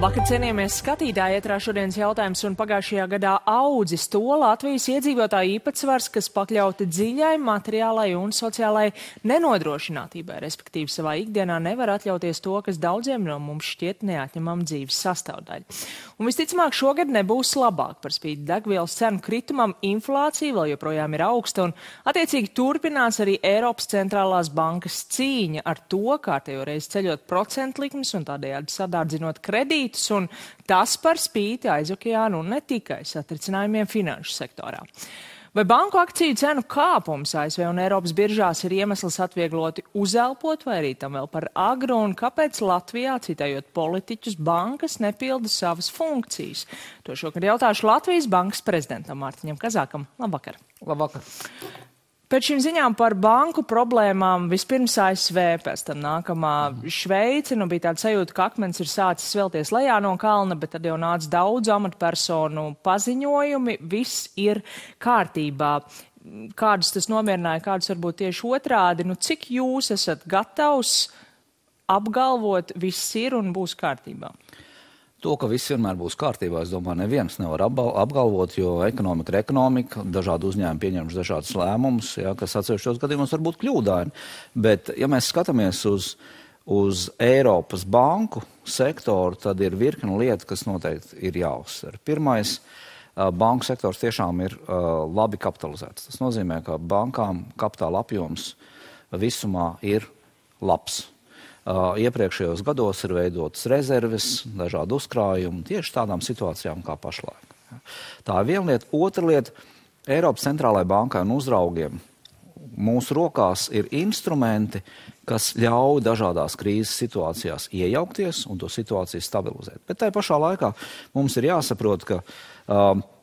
Labvakar, cienījamies skatītāji, ietrā šodienas jautājums un pagājušajā gadā audzis to Latvijas iedzīvotāju īpatsvars, kas pakļauti dziļai materiālai un sociālai nenodrošinātībai, respektīvi savā ikdienā nevar atļauties to, kas daudziem no mums šķiet neatņemama dzīves sastāvdaļa. Un visticamāk šogad nebūs labāk par spīti degvielas cenu kritumam, inflācija vēl joprojām ir augsta un attiecīgi turpinās arī Eiropas centrālās bankas cīņa ar to, kārtējo reizi ceļot procentlikmes un tādējādi sadārdzinot kredītus, un tas par spīti aizokeānu un ne tikai satricinājumiem finanšu sektorā. Vai banku akciju cenu kāpums ASV un Eiropas biržās ir iemesls atviegloti uzelpot, vai arī tam vēl par agru, un kāpēc Latvijā, citējot politiķus, bankas nepilda savas funkcijas? To šokad jautāšu Latvijas bankas prezidentam Mārtiņam Kazākam. Labvakar! Labvakar! Pēc šīm ziņām par banku problēmām vispirms ASV, pēc tam nākamā Šveice. Bija tāda sajūta, ka akmens ir sācis svelties lejā no kalna, bet tad jau nāca daudz amatpersonu paziņojumi. Viss ir kārtībā. Kādus tas nomierināja, kādus varbūt tieši otrādi? Cik jūs esat gatavs apgalvot, viss ir un būs kārtībā? To, ka viss vienmēr būs kārtībā, es domāju, neviens nevar apgalvot, jo ekonomika ir ekonomika, dažādi uzņēmumi pieņemš dažādas lēmumus, kas atsevišķos gadījumos var būt kļūdaini. Bet, ja mēs skatāmies uz Eiropas banku sektoru, tad ir virkne lieta, kas noteikti ir jāuzsver. Pirmais, banku sektors tiešām ir labi kapitalizēts. Tas nozīmē, ka bankām kapitāla apjoms visumā ir labs. Iepriekšējos gados ir veidotas rezerves, dažādi uzkrājumi tieši tādām situācijām kā pašlaik. Tā ir viena lieta. Otra lieta, Eiropas centrālajai bankai un uzraugiem mūsu rokās ir instrumenti, kas ļauj dažādās krīzes situācijās iejaukties un to situāciju stabilizēt. Bet tai pašā laikā mums ir jāsaprot, ka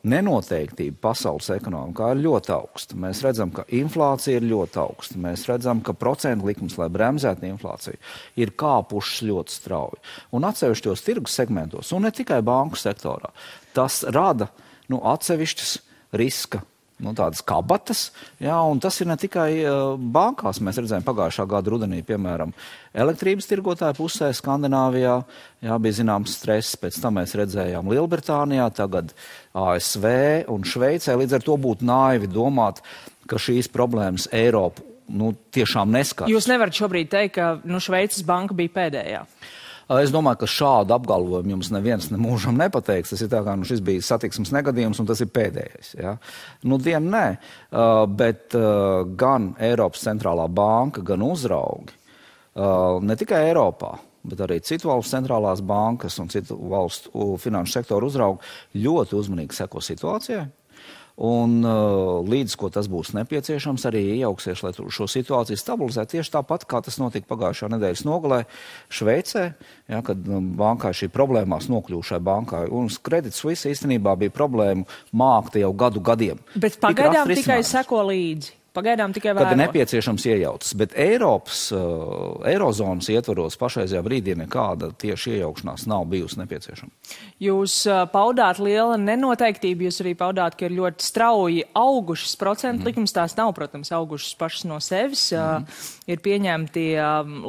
nenoteiktība pasaules ekonomikā ir ļoti augsta. Mēs redzam, ka inflācija ir ļoti augsta. Mēs redzam, ka procentu likmes, lai bremzētu inflāciju, ir kāpušas ļoti strauji. Un atsevišķos tirgus segmentos, un ne tikai banku sektorā, tas rada atsevišķas riska, tādas kabatas, un tas ir ne tikai bankās. Mēs redzējām pagājušā gada rudenī, piemēram, elektrības tirgotāju pusē Skandināvijā, bija zināms stress, pēc tam mēs redzējām Lielbritānijā, tagad ASV un Šveicē. Līdz ar to būtu naivi domāt, ka šīs problēmas Eiropu tiešām neskars. Jūs nevarat šobrīd teikt, ka Šveices banka bija pēdējā? Es domāju, ka šādu apgalvojumu jums neviens nemūžam nepateiks. Tas ir tā kā šis bija satiksmes negadījums un tas ir pēdējais. Ja? Dienu nē, bet gan Eiropas centrālā banka, gan uzraugi, ne tikai Eiropā, bet arī citu valstu centrālās bankas un citu valstu finanšu sektoru uzraugi ļoti uzmanīgi seko situācijai. Un līdz, ko tas būs nepieciešams, arī iejauksies, lai šo situāciju stabilizētu. Tieši tāpat, kā tas notika pagājušā nedēļas nogalē Šveicē, kad bankai šī problēmās nokļūšai bankai. Un Credit Suisse īstenībā bija problēmu mākta jau gadiem. Bet pagaidām tikai seko līdzi. Pagaidām tikai vēro. Kad ir nepieciešams iejaucas, bet Eirozonas ietvaros pašreizajā brīdī nekāda tieši iejaukšanās nav bijusi nepieciešama. Jūs paudāt liela nenoteiktība, jūs arī paudāt, ka ir ļoti strauji augušas procentu likmes, tās nav, protams, augušas pašas no sevis. Ir pieņemti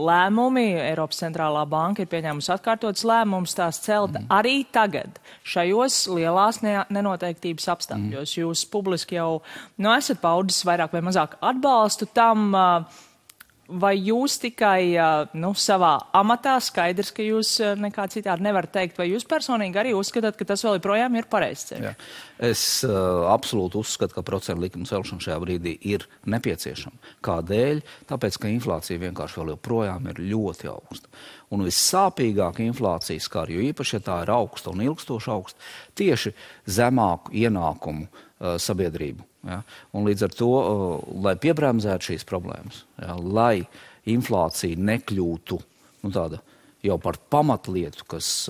lēmumi, Eiropas centrālā banka ir pieņēmusi atkārtotas lēmumus, tās celt arī tagad, šajos lielās nenoteiktības apstākļos. Jūs publiski jau esat paudis vairāk vai mazāk atbalstu tam, vai jūs tikai savā amatā, skaidrs, ka jūs nekā citādi nevarat teikt, vai jūs personīgi arī uzskatāt, ka tas vēl joprojām ir pareizs ceļš? Es absolūti uzskatu, ka procentu likuma celšana šajā brīdī ir nepieciešama. Kādēļ? Tāpēc, ka inflācija vienkārši vēl joprojām ir ļoti augsta. Un vissāpīgāk inflācija skar, jo īpaši, ja tā ir augsta un ilgstoši augsta, tieši zemāku ienākumu sabiedrību. Ja? Un līdz ar to, lai piebremzētu šīs problēmas, lai inflācija nekļūtu tāda jau par pamatlietu, kas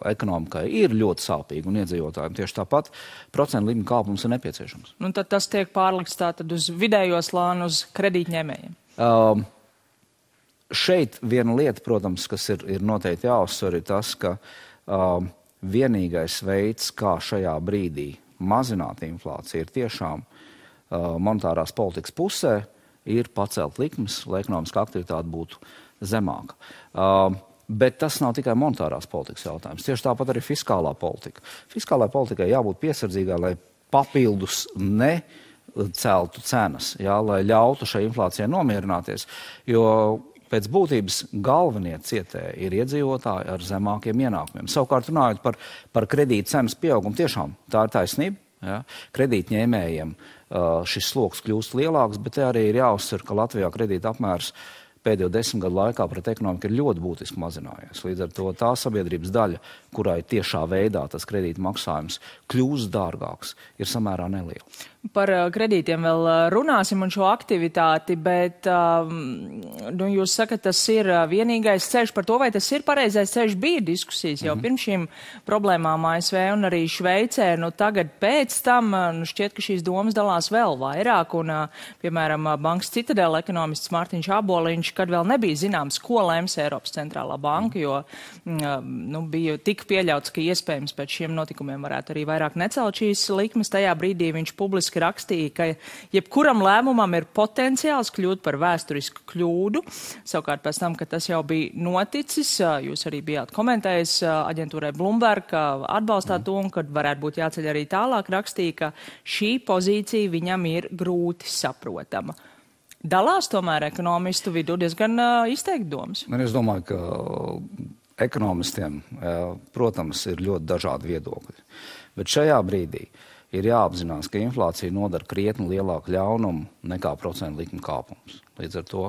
ekonomikai ir ļoti sāpīga un iedzīvotājiem tieši tāpat, procentu likuma kāpums ir nepieciešams. Tad tas tiek pārlikts tātad uz vidējo slānu, uz kredītņēmējiem? Šeit viena lieta, protams, kas ir noteikti jāuzsver, ir tas, ka vienīgais veids, kā šajā brīdī mazināt inflāciju, ir tiešām monetārās politikas pusē, ir pacelt likmes, lai ekonomiskā aktivitāte būtu zemāka. Bet tas nav tikai monetārās politikas jautājums. Tieši tāpat arī fiskālā politika. Fiskālā politikai jābūt piesardzīgai, lai papildus neceltu cenas, lai ļautu šai inflācijai nomierināties, jo pēc būtības galvenie cietēji ir iedzīvotāji ar zemākiem ienākumiem. Savukārt runājot par kredīta cenas pieaugumu, tiešām tā ir taisnība. Ja? Kredītņēmējiem šis sloks kļūst lielāks, bet te arī ir jāuzsver, ka Latvijā kredīta apmērs pēdējo 10 gadu laikā pret ekonomiku ir ļoti būtiski mazinājies. Līdz ar to tā sabiedrības daļa, kurai tiešā veidā tas kredīta maksājums kļūst dārgāks, ir samērā neliela. Par kredītiem vēl runāsim un šo aktivitāti, bet jūs sakat, tas ir vienīgais ceļš par to, vai tas ir pareizais ceļš. Bija diskusijas jau pirms šīm problēmām ASV un arī Šveicē. Tagad pēc tam šķiet, ka šīs domas dalās vēl vairāk. Un, piemēram, Bankas Citadela ekonomists Mārtiņš Aboliņš, kad vēl nebija zināms, ko lems Eiropas centrālā banka, jo bija tik pieļauts, ka iespējams pēc šiem notikumiem varētu arī vairāk necelt šīs likmes. Tajā brīdī viņš publiski rakstīja, ka jebkuram lēmumam ir potenciāls kļūt par vēsturisku kļūdu. Savukārt pēc tam, kad tas jau bija noticis, jūs arī bijāt komentējis aģentūrai Bloomberg, atbalstāt to, un kad varētu būt jāceļ arī tālāk, rakstīja, ka šī pozīcija viņam ir grūti saprotama. Dalās tomēr ekonomistu vidū diezgan izteikti domas. Es domāju, ka ekonomistiem, protams, ir ļoti dažādi viedokļi. Bet šajā brīdī ir jāapzinās, ka inflācija nodara krietni lielāku ļaunumu nekā procentu likuma kāpums. Līdz ar to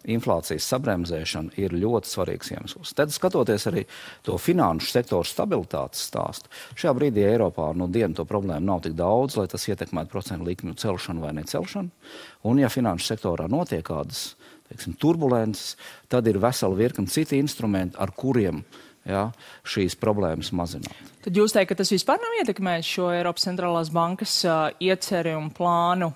inflācijas sabremzēšana ir ļoti svarīgs iemesls. Tad, skatoties arī to finanšu sektoru stabilitātes stāstu, šajā brīdī Eiropā dienu to problēmu nav tik daudz, lai tas ietekmētu procentu likmju celšanu vai necelšanu. Un ja finanšu sektorā notiek kādas, turbulences, tad ir vesela virkne citi instrumenti, ar kuriem šīs problēmas mazināt. Tad jūs teikt, ka tas vispār nav ietekmējis šo Eiropas centrālās bankas ieceri un plānu?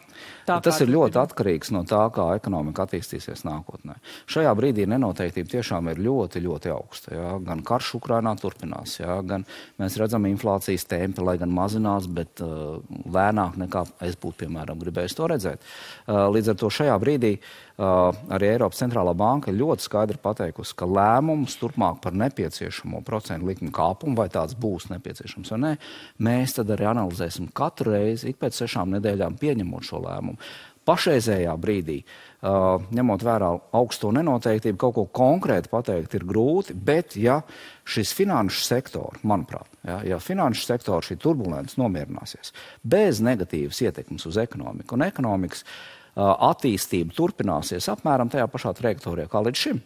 Tas ir ļoti atkarīgs no tā, kā ekonomika attīstīsies nākotnē. Šajā brīdī nenoteiktība tiešām ir ļoti, ļoti augsta. Gan karš Ukrainā turpinās, gan mēs redzam inflācijas tempi, lai gan mazinās, bet lēnāk nekā es būtu, piemēram, gribējis to redzēt. Līdz ar to šajā brīdī arī Eiropas centrālā banka ļoti skaidri pateikusi, ka lēmums turpmāk par nepieciešamo procentu likmi kāpumu, vai tāds būs nepieciešams vai nē, mēs tad arī analizēsim katru reizi, ik pēc 6 nedēļām pieņemot šo lēmumu. Pašreizējā brīdī, ņemot vērā augsto nenoteiktību, kaut ko konkrēti pateikt ir grūti, bet ja šis finanšu sektors, manuprāt, ja finanšu sektors šī turbulence nomierināsies bez negatīvas ietekmes uz ekonomiku un ekonomikas attīstība turpināsies apmēram tajā pašā trajektorijā kā līdz šim,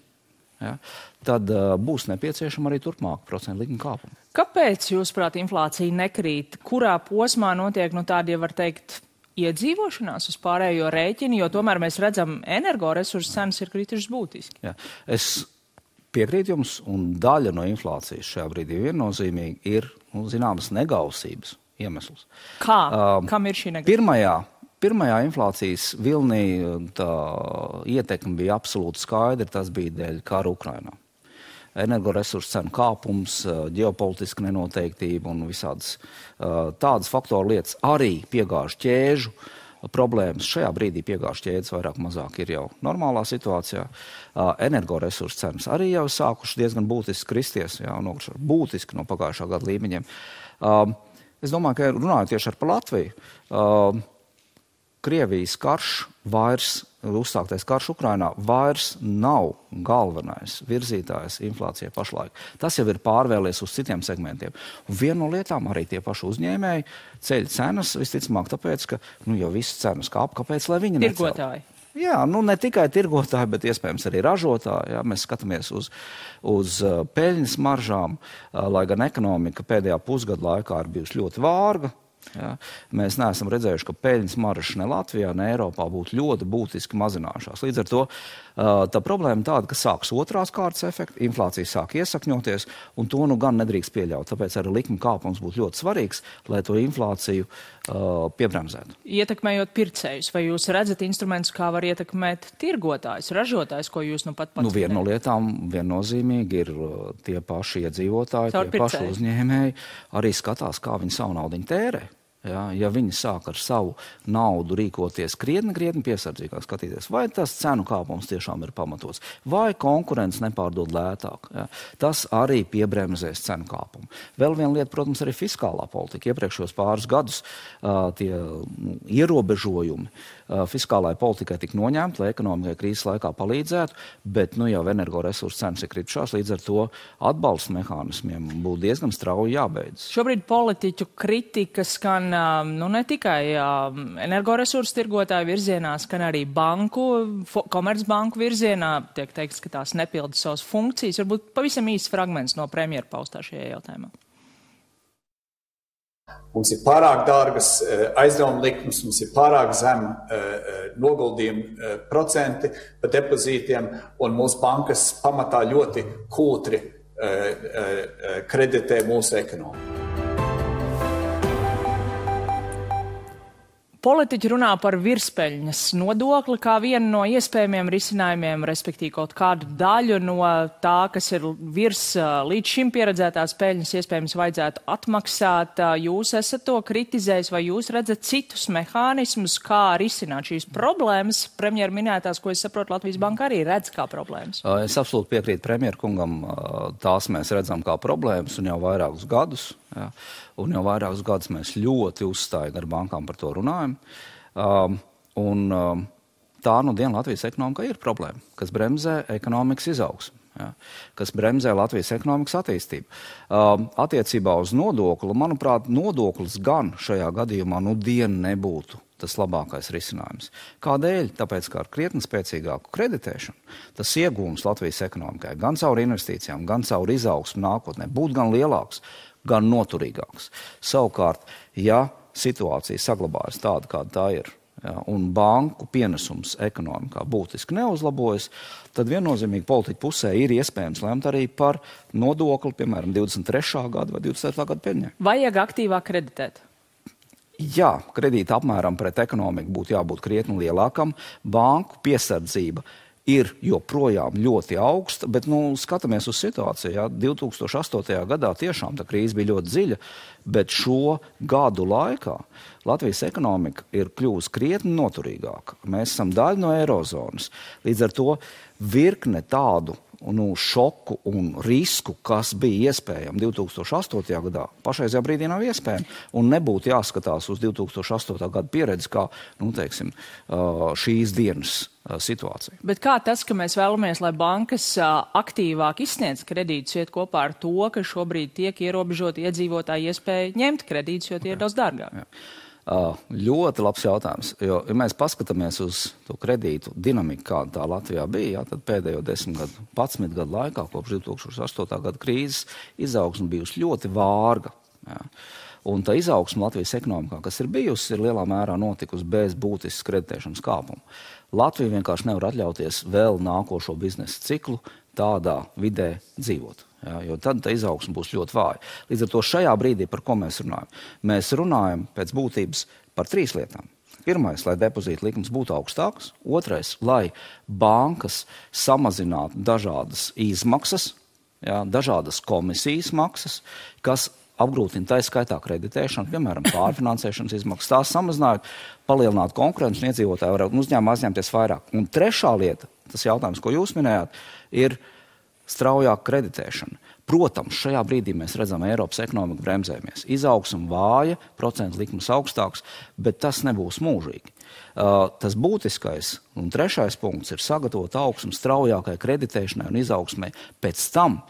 tad būs nepieciešama arī turpmāk procentu likuma kāpuma. Kāpēc, jūsuprāt, inflācija nekrīt? Kurā posmā notiek tāda, ja var teikt, iedzīvošanās uz pārējo rēķinu, jo tomēr mēs redzam, energoresursu cenas ir kritušas būtiski? Es piekrītu jums, un daļa no inflācijas šajā brīdī viennozīmīgi ir zināmas negausības iemesls. Kā? Kam ir šī negausība? Pirmajā inflācijas vilnī tā ietekme bija absolūti skaidra, tas bija dēļ kara Ukrainā. Energoresursu cenu kāpums, ģeopolitiska nenoteiktība un visādas tādas faktoru lietas, arī piegāžu ķēžu problēmas. Šajā brīdī piegāžu ķēdes vairāk mazāk ir jau normālā situācijā. Energoresursu cenas arī jau sākuši diezgan būtiski kristies, būtiski no pagājušā gada līmeņiem. Es domāju, ka runājot tieši par Latviju, Krievijas karš uzsāktais karš Ukrainā vairs nav galvenais virzītājs inflācijai pašlaik. Tas jau ir pārvēlies uz citiem segmentiem. Un viena no lietām arī tie paši uzņēmēji ceļ cenas, visticamāk tāpēc, ka jau visas cenas kāp, kāpēc, lai viņi necel? Tirgotāji. Jā, ne tikai tirgotāji, bet iespējams arī ražotāji. Mēs skatāmies uz peļņas maržām, lai gan ekonomika pēdējā pusgada laikā ir bijusi ļoti vārga. Mēs neesam redzējuši, ka peļņas maržas ne Latvijā, ne Eiropā būtu ļoti būtiski mazinājušās. Līdz ar to tā problēma tāda, ka sāks otrās kārtas efekti, inflācija sāk iesakņoties, un to gan nedrīkst pieļaut. Tāpēc arī likuma kāpums būtu ļoti svarīgs, lai to inflāciju piebremzētu. Ietekmējot pircējus, vai jūs redzat instrumentus, kā var ietekmēt tirgotājus, ražotājus, ko jūs pat pats? Viena no lietām viennozīmīgi ir tie paši iedzīvotāji, tie paši uzņēmēji arī skatās, kā viņi savu naudiņu tērē. ja viņi sāk ar savu naudu rīkoties krietni piesardzīgāk skatīties, vai tas cenu kāpums tiešām ir pamatots, vai konkurence nepārdod lētāk. Ja. Tas arī piebremzēs cenu kāpumu. Vēl viena lieta, protams, arī fiskālā politika. Iepriekšos pāris gadus tie ierobežojumi fiskālai politikai tika noņemti, lai ekonomikai krīzes laikā palīdzētu, bet jau energoresursu cenas ir kritušās, līdz ar to atbalsta mehānismiem būtu diezgan strauji jābeidz. Šobrīd politiķu kritika skan ne tikai energoresursu tirgotāju virzienā, skan arī komercbanku virzienā. Tiek teikts, ka tās nepilda savas funkcijas. Varbūt pavisam īsts fragments no premjera paustā šajā jautājumā. Mums ir pārāk dārgas aizdevuma likmes, mums ir pārāk zem noguldījuma procenti par depozītiem, un mūsu bankas pamatā ļoti kūtri kreditē mūsu ekonomiku. Politiķi runā par virspeļņas nodokli kā vienu no iespējamiem risinājumiem, respektīvi kaut kādu daļu no tā, kas ir virs līdz šim pieredzētās peļņas, iespējams vajadzētu atmaksāt. Jūs esat to kritizējis, vai jūs redzat citus mehānismus, kā risināt šīs problēmas? Premjera minētās, ko es saprotu, Latvijas Banka arī redz kā problēmas. Es absolūti piekrītu premjera kungam, tās mēs redzam kā problēmas un jau vairākus gadus. Ja. Un jau vairākus gadus mēs ļoti uzstājīgi ar bankām par to runājam. Tā diena Latvijas ekonomikā ir problēma, kas bremzē ekonomikas izaugsmu, ja, kas bremzē Latvijas ekonomikas attīstību. Attiecībā uz nodokli, manuprāt, nodoklis gan šajā gadījumā diena nebūtu tas labākais risinājums. Kādēļ? Tāpēc, ka ar krietni spēcīgāku kreditēšanu tas iegūms Latvijas ekonomikai gan caur investīcijām, gan caur izaugsmu nākotnē būtu gan lielāks, gan noturīgāks. Savukārt, ja situācija saglabājas tāda, kāda tā ir, ja, un banku pienesums ekonomikā būtiski neuzlabojas, tad viennozīmīgi politiķu pusē ir iespējams lemt arī par nodokli, piemēram, 23. gada vai 24. gada peļņai. Vajag aktīvāk kreditēt? Jā, kredīta apmēram pret ekonomiku būtu jābūt krietni lielākam. Banku piesardzība ir joprojām ļoti augsta, bet skatāmies uz situāciju. Ja? 2008. gadā tiešām tā krīze bija ļoti dziļa, bet šo gadu laikā Latvijas ekonomika ir kļuvusi krietni noturīgāka. Mēs esam daļa no eirozonas. Līdz ar to virkne tādu šoku un risku, kas bija iespējami 2008. gadā, pašreizajā brīdī nav iespējami. Un nebūtu jāskatās uz 2008. gada pieredzi kā, šīs dienas situācija. Bet kā tas, ka mēs vēlamies, lai bankas aktīvāk izsniedz kredītus, iet kopā ar to, ka šobrīd tiek ierobežot iedzīvotāju iespēju ņemt kredītus, jo tie ir daudz dārgāk? Jā. Ļoti labs jautājums, jo, ja mēs paskatāmies uz to kredītu dinamiku, kāda tā Latvijā bija, tad pēdējo 11 gadu laikā, kopš 2008. gada krīzes, izaugsme bijusi ļoti vārga. Jā. Un tā izaugsme Latvijas ekonomikā, kas ir bijusi, ir lielā mērā notikusi bez būtiskas kreditēšanas kāpuma. Latvija vienkārši nevar atļauties vēl nākošo biznesa ciklu tādā vidē dzīvot. Ja, jo tad tā izaugsme būs ļoti vāja. Līdz ar to šajā brīdī, par ko mēs runājam? Mēs runājam pēc būtības par 3 lietām. Pirmais, lai depozīta likmes būtu augstākas. Otrais, lai bankas samazinātu dažādas izmaksas, ja, dažādas komisijas maksas, kas apgrūtina tā skaitā kreditēšanu, piemēram, pārfinansēšanas izmaksas. Tās samazinājot, palielināt konkurenci un iedzīvotāji varētu uzņēmumi aizņemties vairāk. Un trešā lieta, tas jautājums, ko jūs minējāt, ir straujāka kreditēšana. Protams, šajā brīdī mēs redzam Eiropas ekonomiku bremzējamies. Izaugsme vāja, procentu likmes augstāks, bet tas nebūs mūžīgi. Tas būtiskais un trešais punkts ir sagatavot augsmu straujākai kreditēšanai un izaugsmai pēc tam,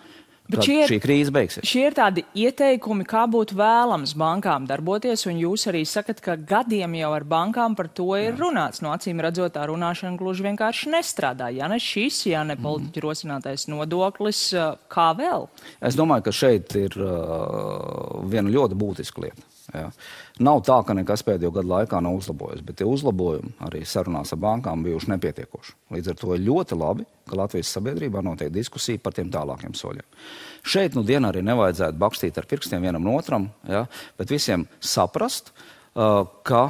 kad šī krīze beigsies. Šie ir tādi ieteikumi, kā būtu vēlams bankām darboties, un jūs arī sakat, ka gadiem jau ar bankām par to ir runāts. No acīm redzot, tā runāšana gluži vienkārši nestrādā. Ja ne šis, ja ne politiķu rosinātais nodoklis, kā vēl? Es domāju, ka šeit ir viena ļoti būtiska lieta. Ja. Nav tā, ka nekas pēdējo gadu laikā nav uzlabojies, bet tie uzlabojumi arī sarunās ar bankām bijuši nepietiekoši. Līdz ar to ir ļoti labi, ka Latvijas sabiedrībā notiek diskusija par tiem tālākiem soļiem. Šeit dienā arī nevajadzētu bakstīt ar pirkstiem vienam no otram, ja, bet visiem saprast, ka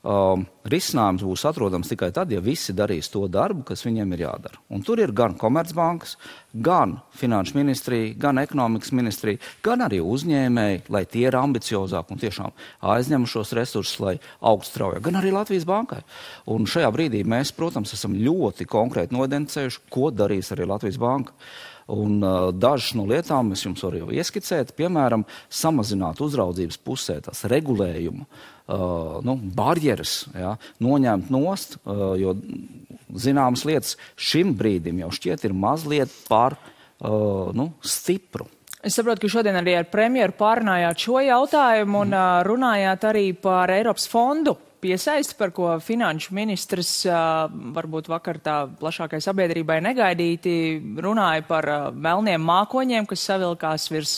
risinājums būs atrodams tikai tad, ja visi darīs to darbu, kas viņiem ir jādara. Un tur ir gan Komercbankas, gan Finanšu ministrija, gan Ekonomikas ministrija, gan arī uzņēmēji, lai tie ir ambiciozāki un tiešām aizņem šos resursus, lai augstu straujāk, gan arī Latvijas bankai. Un šajā brīdī mēs, protams, esam ļoti konkrēti noidentificējuši, ko darīs arī Latvijas banka. Un dažas no lietām es jums varu jau ieskicēt, piemēram, samazināt uzraudzības pusē tās regulējumu, barjeras, noņemt nost, jo zināmas lietas šim brīdim jau šķiet ir mazliet par stipru. Es saprotu, ka šodien arī ar premjeru pārunājāt šo jautājumu un runājāt arī par Eiropas fondu piesaisti, par ko finanšu ministrs varbūt vakar tā plašākai sabiedrībai negaidīti runāja par melniem mākoņiem, kas savilkās virs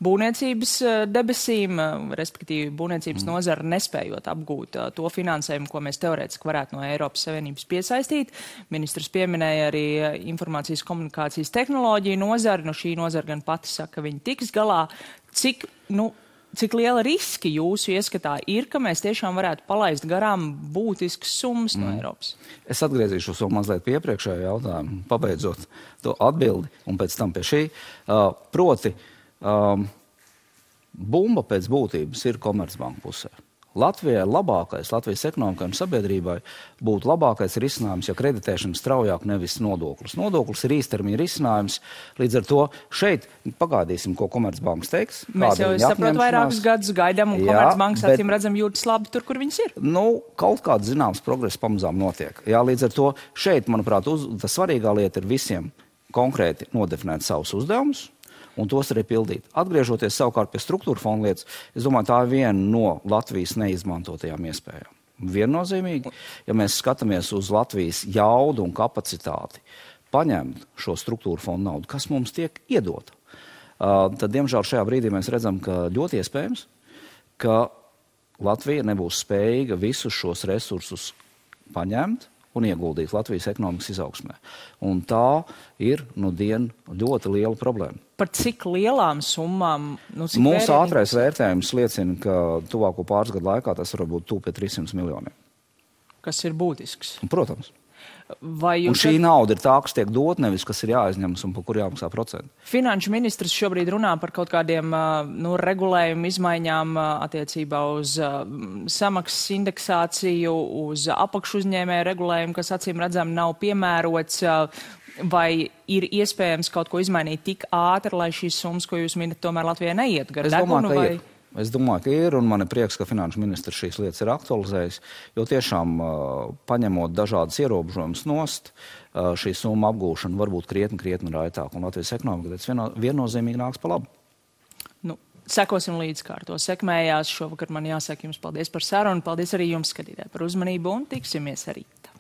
būvniecības debesīm, respektīvi būvniecības nozara nespējot apgūt to finansējumu, ko mēs teorētiski varētu no Eiropas Savienības piesaistīt. Ministrs pieminēja arī informācijas komunikācijas tehnoloģiju nozari, šī nozara gan pati saka, ka viņi tiks galā. Cik liela riski jūsu ieskatā ir, ka mēs tiešām varētu palaist garām būtiskas summas no Eiropas? Es atgriezīšos vēl mazliet pie iepriekšējā jautājuma, pabeidzot to atbildi un pēc tam pie šī. Proti, bumba pēc būtības ir Komercbanka pusē. Latvijai labākais, Latvijas ekonomikai un sabiedrībai būtu labākais risinājums, ja kreditēšana straujāk nevis nodoklis. Nodoklis ir īstermiņa risinājums, līdz ar to šeit pagaidīsim, ko Komercbankas teiks. Mēs jau saprot vairākus gadus gaidām un Komercbankas acīm redzam jūtas labi tur, kur viņas ir. Kaut kāds zināms progress pamazām notiek. Līdz ar to šeit, manuprāt, tā svarīgā lieta ir visiem konkrēti nodefinēt savus uzdevumus un tos arī pildīt. Atgriežoties savukārt pie struktūra fonda lietas, es domāju, tā ir viena no Latvijas neizmantotajām iespējām. Viennozīmīgi, ja mēs skatāmies uz Latvijas jaudu un kapacitāti, paņemt šo struktūra fonda naudu, kas mums tiek iedota, tad, diemžēl, šajā brīdī mēs redzam, ka ļoti iespējams, ka Latvija nebūs spējīga visus šos resursus paņemt un ieguldīt Latvijas ekonomikas izaugsmē. Un tā ir ļoti liela problēma. Par cik lielām summām? Mūsu ātrais vērtējums liecina, ka tuvāko pāris gadu laikā tas var būt tuvu pie 300 miljoniem. Kas ir būtisks? Protams. Un šī nauda ir tā, kas tiek dot, nevis kas ir jāaizņemas un par kur jāmaksā procenti. Finanšu ministrs šobrīd runā par kaut kādiem regulējumu izmaiņām attiecībā uz samaksas indeksāciju, uz apakšuzņēmēju regulējumu, kas acīm redzam nav piemērots. Vai ir iespējams kaut ko izmainīt tik ātri, lai šīs summas, ko jūs minat, tomēr Latvijai neiet gar degunu? Es domāju, ka ir, un man ir prieks, ka finanšu ministrs šīs lietas ir aktualizējis, jo tiešām paņemot dažādas ierobežojumus nost, šī summa apgūšana var būt krietni raitāk, un Latvijas ekonomika viennozīmīgi nāks pa labu. Sekosim līdz, kā ar to sekmējās. Šovakar man jāsaka jums paldies par sarunu, paldies arī jums, skatītāji, par uzmanību, un tiksimies rīt.